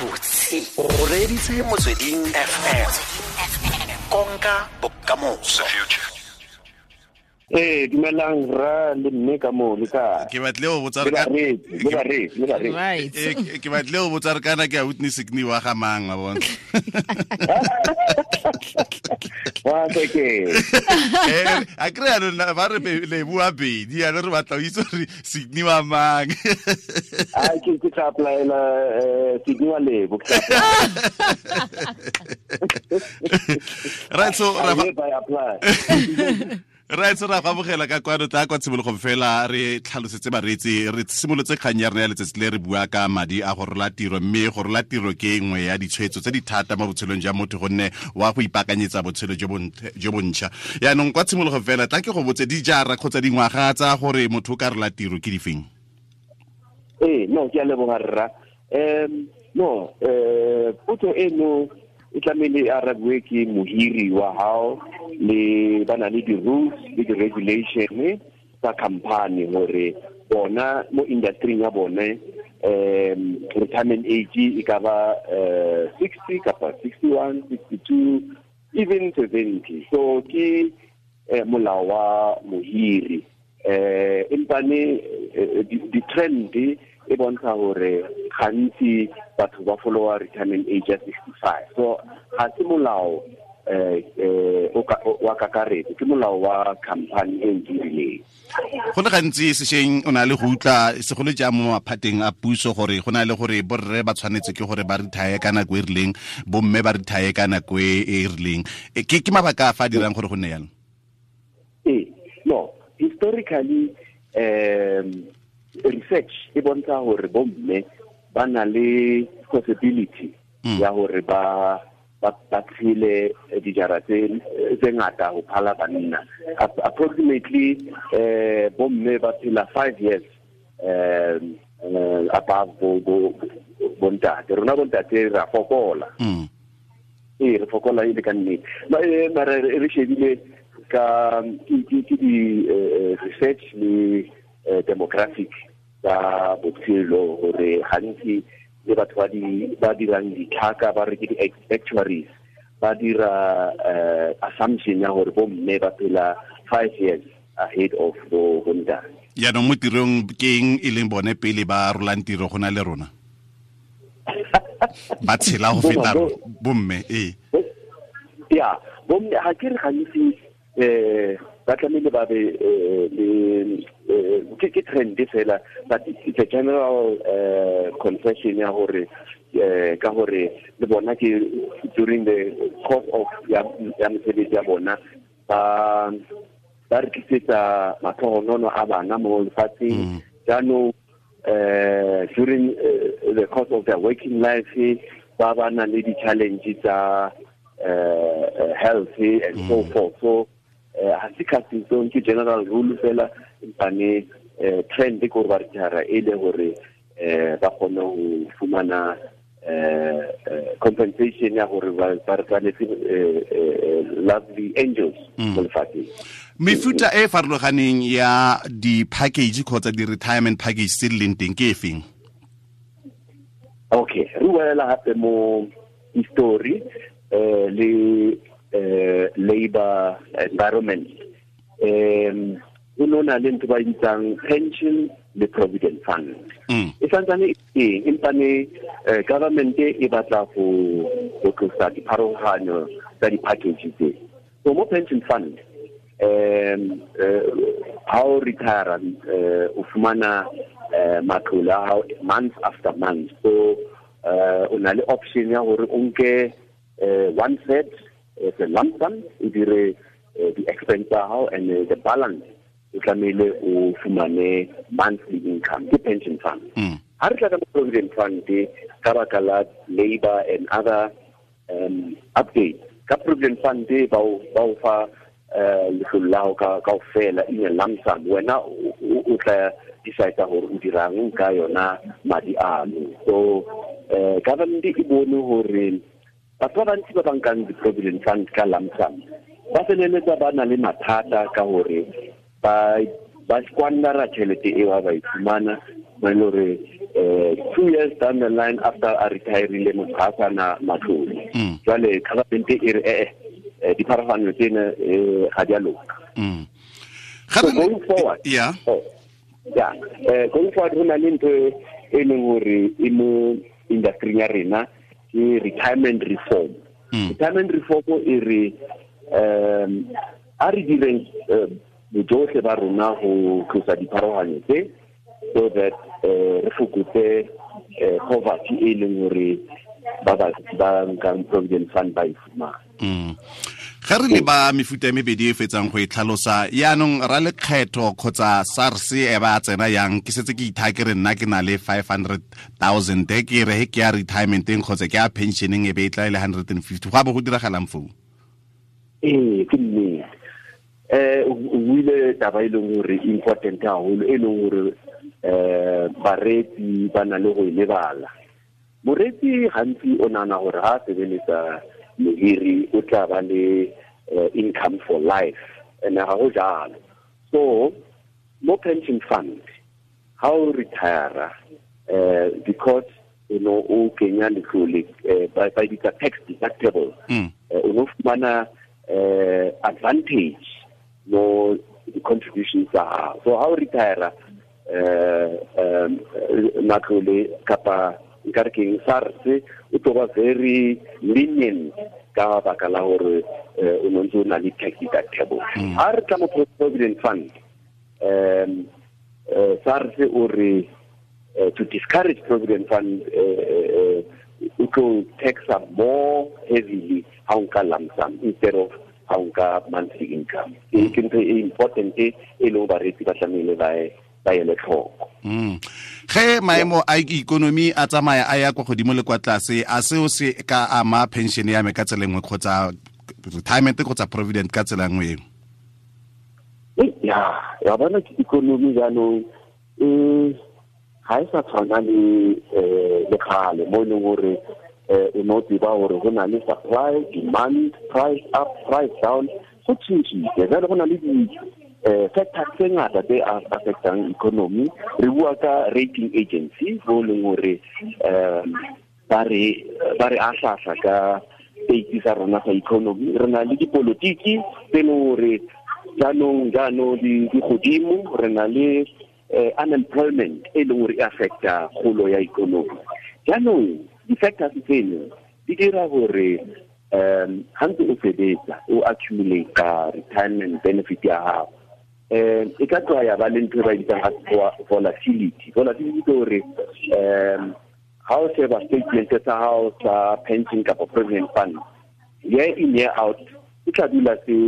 Gabotse o reeditse Motsweding FM, konka bokamoso. Ee, dumelang ra le mme ka moo le kae? Ke batle go botsa Le bareetsi, le bareetsi, le bareetsi. Right. Ke batle go botsa re kana ke a witness ke wa ga mang wa bona. Wa ke. A kry yaanong ba re le bua bedi yaanong re batla o itse gore Sydney wa mang. Ai, ke tla applyela Sydney wa Lebo. Ke tla Right, so apply. I hereby apply. Right, so ra go amogela ka kwano. Tla kwa tshimologong fela re tlhalosetse bareetsi, re simolotse kgang ya rona ya letsatsi le re bua ka madi a go rola tiro, mme go rola tiro ke nngwe ya ditshwetso tse di thata mo botshelong jwa motho gonne wa go ipaakanyetsa botshelo jo bontšha. Yaanong kwa tshimologong fela tla ke go botse, dijara kgotsa dingwaga tsa gore motho o ka rola tiro ke difeng? Ee, no, ke a leboga rra. No, potso eno e tlamehile e arabiwe ke mohiri wa hao, le ba na le di-rules le di-regulation tsa company gore bona mo industry ya bone retirement age e ka ba 60 kapa 61, 62, even 70. So ke molao wa mohiri, empane di-trend e bontsha hore gantsi batho ba followa retirement age ya 65. So ga se molao wa kakaretso, ke molao wa company e o dirileng. Go le gantsi sešweng o na le go utlwa, segolo jang mo maphateng a puso, gore go na le gore borre ba tshwanetse ke gore ba retire ka nako e rileng, bomme ba retire ka nako e rileng. Ke mabaka a fa a dirang gore go nne jalo? Ee, no, historically research e bontsha hore bomme ba na le possibility ya hore ba tshele dijara tse ngata ho phala banna. Approximately bomme ba phela 5 years above bo bontate. Rona bontate ra fokola. Ee, re fokola e le ka nnete. Mara re shebile ka ke di research le demographic tsa botshelo gore gantsi le batho ba dirang ditlhaka, ba re ke di-actuaries, ba dira assumption ya gore bomme ba phela 5 years ahead of bo bontate. Yaanong mo tirong ke eng e leng bone pele ba rolang tiro go na le rona, ba tshela go feta bomme, ee? Ya, bomme ga ke re gantsi ba tlamehile ba be le ke trend fela, but it's a general confession ya gore ka gore le bona ke during the course of ya mosebetsi ya bona ba re tlisetsa matlhogonono a bana mo lefatsheng. Jaanong during the course of their working life ba na le di-challenge tsa health and so forth. So ha se casting, ke general rule fela, empane trend ke gore ba retire e le gore ba kgone ho fumana compensation ya gore ba re tshwanetse lovely angels mo lefatsheng. Mefuta e farologaneng ya di-package kgotsa di-retirement package tse di leng teng ke e feng? Okay, re boela gape mo history le labor environment. Go no na le ntho ba e bitsang pension le provident fund. E santsane e teng, empane government e batla go tlosa dipharologanyo tsa di-package tse. So mo pension fund, ha o retire, o fumana matlole a hao month after month. So o na le option ya gore o nke one third as a lump sum, o dire di-expense tsa hao, and the balance o tlamehile o fumane monthly income. Ke pension fund. Ha re tla ka provident fund, ka baka la labor and other updates ka provident fund, ba o fa letlole la hao ka kaofela in a lump sum. Wena o tla decide gore o dirang ka yona madi ano. So government e bone gore batho ba bantsi ba ba nkang di-provident fund ka lump sum ba feleletsa ba na le mathata ka gore ba squandera tšhelete eo ha ba e fumana, mo e le gore 2 years down the line, after a retirile, motho ga a sana matlole. Jwale government e re ee, dipharologano tsena ga di a loka. So going forward, oh, yeah, going forward, go na le ntho e leng gore e mo industry ya rena, ke retirement reform. Retirement reform e re a re direng bojotlhe ba rona go tlosa dipharologanyo tse, so that re fokotse poverty e leng gore ba ba nkang provident fund ba e fumana. Ga re le ba mefuta e mebedi e fetsang go e tlhalosa yaanong, ra lekgetho kgotsa SARS e ba tsena yang? Ke setse ke itha ke re nna ke na le 500 000, ke re he ke ya retirementeng kgotsa ke ya pensioneng, e be e tla e le 150, go a bo go diragalang foo? Ee, ke nnete. O buile taba e leng gore important haholo, e leng gore bareetsi ba na le go e lebala. Moreetsi gantsi o nahana gore ha a sebeletsa mohiri, o tla ba le income for life, and ga go jalo. So mo pension fund, ha o retire, because you know o kenya letlole, ba bitsa tax deductible, o no fumana advantage mo di-contributions tsa gago. So ha o retire, matlole kapa nkare keng, SARS o tlo ba very lenient ka baka la gore o no ntse o na le tax deductible. Ha re tla mo provident fund, SARS o re to discourage provident fund, o tlo taxa more heavily ha o nka lump sum instead of ha o nka monthly income. Ke ntho e important e leng bareetsi ba tlamehile ba ele tlhoko. Ge maemo a ikonomi a tsamaya a ya kwa godimo le kwa tlase, a seo se ka ama pension ya me ka tsela nngwe, kgotsa retirement kgotsa provident ka tsela nngwe eo? Ya bona, ke ikonomi jaanong e ga e sa tshwana le le kgale, mo e leng gore o ne o tseba gore go na le supply, demand, price up, price down. Go tšhentšhile jale, go na le di factors tse ngata tse affectang economy. Re bua ka rating agency, bo leng gore ba re ahlahla ka state sa rona sa economy. Re na le dipolotiki tse leng gore jaanong di godimo. Re na le unemployment e leng gore e affecta kgolo ya economy. Jaanong di-factors tseno di dira gore ha ntse o sebetsa, o accumulate retirement benefit ya gago, e ka tloa ya ba le ntho e ba e bitsang volatility. Volatility ke gore ha o sheba statement sa hao sa pension kapa provident fund, year in, year out, e tla dula se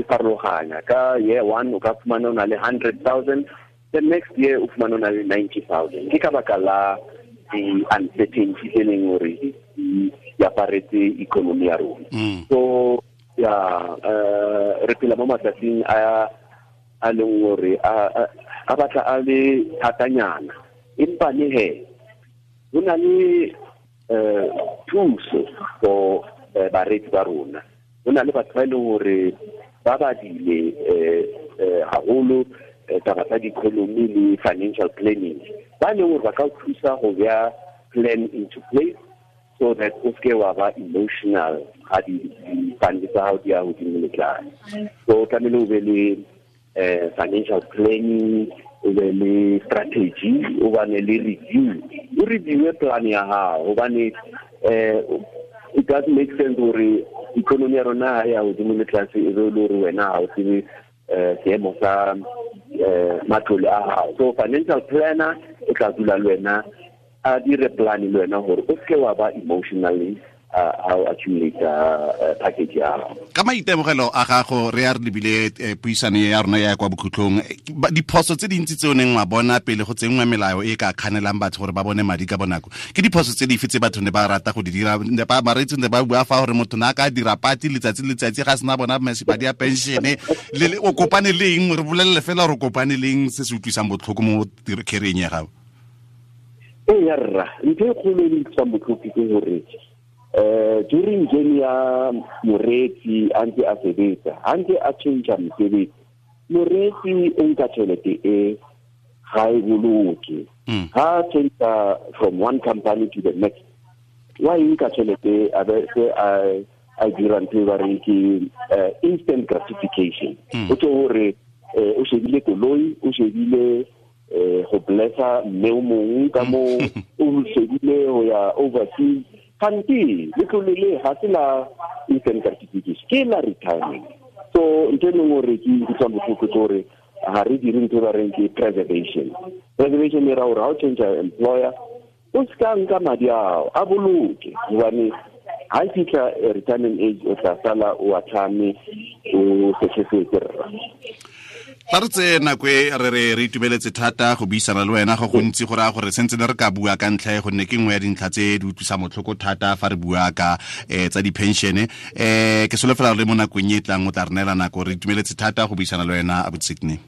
farologanya. Ka year one o ka fumana o na le 100 000, the next year o fumana o na le 90 000. Ke ka baka la di-uncertainty tse leng gore di aparetse economy ya rona. So ya re phela mo matsatsing a leng gore a batla a le thatanyana, empa le he go na le thuso for bareetsi ba rona. Go na le batho ba e leng gore ba badile haholo taba tsa di-economy le financial planning, ba leng gore ba ka o thusa go beya plan into place so that o seke wa ba emotional ga di-fund tsa gago di ya godimo le tlase. So tlamehile o be le financial planning, o be le strategy, o bane le review, o reviewe plan ya gago, gobane it doesn't make sense gore economy ya rona ha ya godimo le tlase, e be le gore wena ga o tsebe seemo sa matlole a gago. So financial planner o tla dula le wena, a dire plan le wena gore o seke wa ba emotionally ha o accumulate package ya gago. Ka maitemogelo a gago, re ya re lebile puisano ya rona ya kwa bokhutlong, diphoso tse dintsi tse o neng wa bona pele go tsenngwa melao e ka kganelang batho gore ba bone madi ka bonako, ke diphoso tse dife tse batho ne ba rata go di dira? Ne ba bareetsi ne ba bua fa gore motho ne a ka dira pati letsatsi le letsatsi ga sena bona madi a pensione. O kopane le eng? Re bolelele fela gore o kopane le eng se se utlwisang botlhoko mo career-eng ya gago. Ee ya rra, ntho e kgolo e utlwisang botlhoko ke gore during journey ya moreetsi a ntse a sebetsa, a ntse a change mosebetsi, moreetsi o nka tšhelete e ga e boloke. Ha change from one company to the next, wa e nka tšhelete a be se a dira ntho e ba reng ke instant gratification. O tlo gore o shebile koloi, o shebile go blessa mme o mongwe ka mo, o shebile go ya overseas. Kante letlole le ga se la instant gratification, ke la retirement. So ntho e leng gore ke utlwang botlhoko ke gore ga re dire ntho e ba reng ke preservation. Preservation e ra gore ga o change employer, o se ka nka madi ao, a boloke, gobane ga e fitlha retirement age o tla sala o atlhame o setlhefetse rra. Tla re tseye nako e re re re itumeletse thata go buisana le wena go gontsi go raya gore sentse ne re ka bua ka ntlha e, gonne ke nngwe ya dintlha tse di utlwisa motlhoko thata fa re bua ka tsa di-pension. Ke solofela le mo nakong e tlang o tla re neela nako. Re itumeletse thata go buisana le wena, abuti Sydney.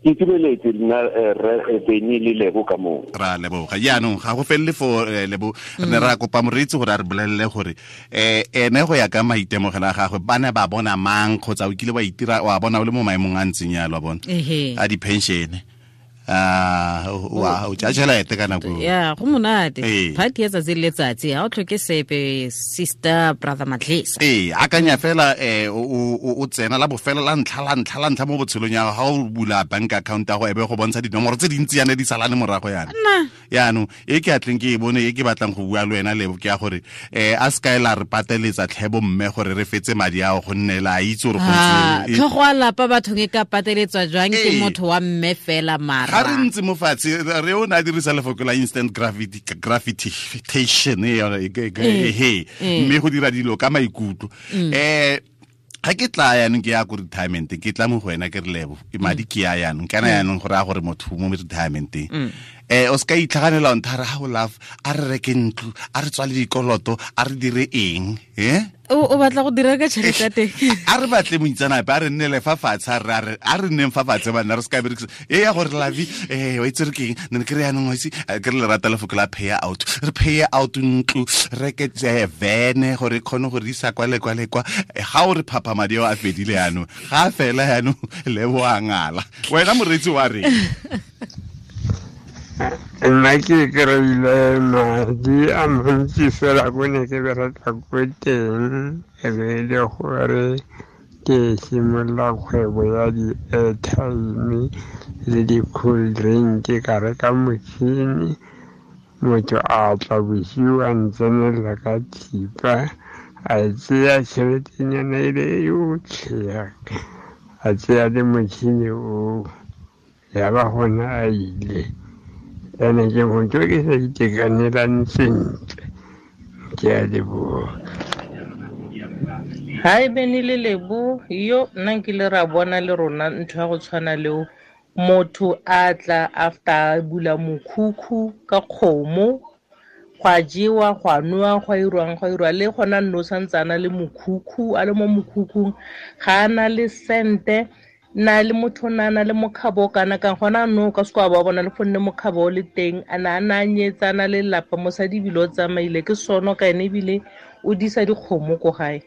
Ke itumeletse nna, rre Benny le Lebo ka moo. Ra leboga. Jaanong ga go felele fo, Lebo, re ne ra kopa moreetsi gore a re bolelele gore ene go ya ka maitemogelo a gagwe ba ne ba bona mang, kgotsa o kile wa itira wa bona o le mo maemong a ntseng yalo, wa bona, a di-pension, wa o tša tšhelete ka nako. Ya go monate, party ya tsatsi le letsatsi, ga o tlhoke sepe, sister brother Matlesa. Ee, akanya fela, o tsena la bofelo la ntlha la ntlha la ntlha mo botshelong ya ga o bula bank account ya go ebe go bontsha dinomoro tse dintsi yana di salane morago yana. Yaanong e ke atleng ke e bone e ke batlang go bua le wena, Lebo, ke ya gore a se kae la re pateletsa tlhebo mme gore re fetse madi ao, gonne la itse gore go ntse Tlhogo a lapa bathong e ka pateletswa jwang ke motho wa mme fela mara? Ga re ntse mo fatshe re o ne a dirisa lefoko la instant gratification e yone, he mme go dira dilo ka maikutlo. Ga ke tla yaanong ke ya ko retirement, ke tla mo go wena ke re, Lebo, madi ke ya yaanong kana yaanong go raya gore motho mo retirementeng o se ka itlhaganela o nthare ga o love, a re reke ntlo, a re tswale dikoloto, a re dire eng, eh? O batla go dira ka tšhelete ya teng? A re batle moitseanape, a re nnele fa fatshe, a re nneng fa fatshe banna, re se ka berekisa e ya gore lavi wa itse re keng ne ke re yaanong wa itse ke re lerata lefoko la pay out, re pay out ntlo, reke vene gore e kgone go re isa kwa le kwa le kwa. Ga o re phapha madi ao a fedile yaanong, ga a fela yaanong, Lebo a ngala. Wena moreetsi wa reng? Nna ke kry-ile madi a mantsi fela ko ne ke bereka ko teng, e be e le gore ke simolola kgwebo ya di-airtime le di-cool drink, ka reka motšhini. Motho a tla bosiu a ntsenelela ka thipa, a tseya tšheletenyana e le yotlhe, a tseya le motšhini oo, ya ba gona a ile. Ene ke motho ke sa itekanelang sentle. Ke a leboga. Hi Benny le Lebo, yo nna nkile ra bona le rona ntho ya go tshwana leo. Motho a tla after a bula mokhukhu ka kgomo, go a jewa, go a nowa, go a irwang, go a irwa, le gona nno santse a na le mokhukhu, a le mo mokhukhung, ga a na le sente. Na le motho na na le mokgabo kana ka gona no ka se kwa ba bona le gonne mokgabo o le teng, a na a na a nyetsa, a na le lelapa, mosadi ebile o tsamaile ke sono ka ene ebile o disa dikgomo ko gae.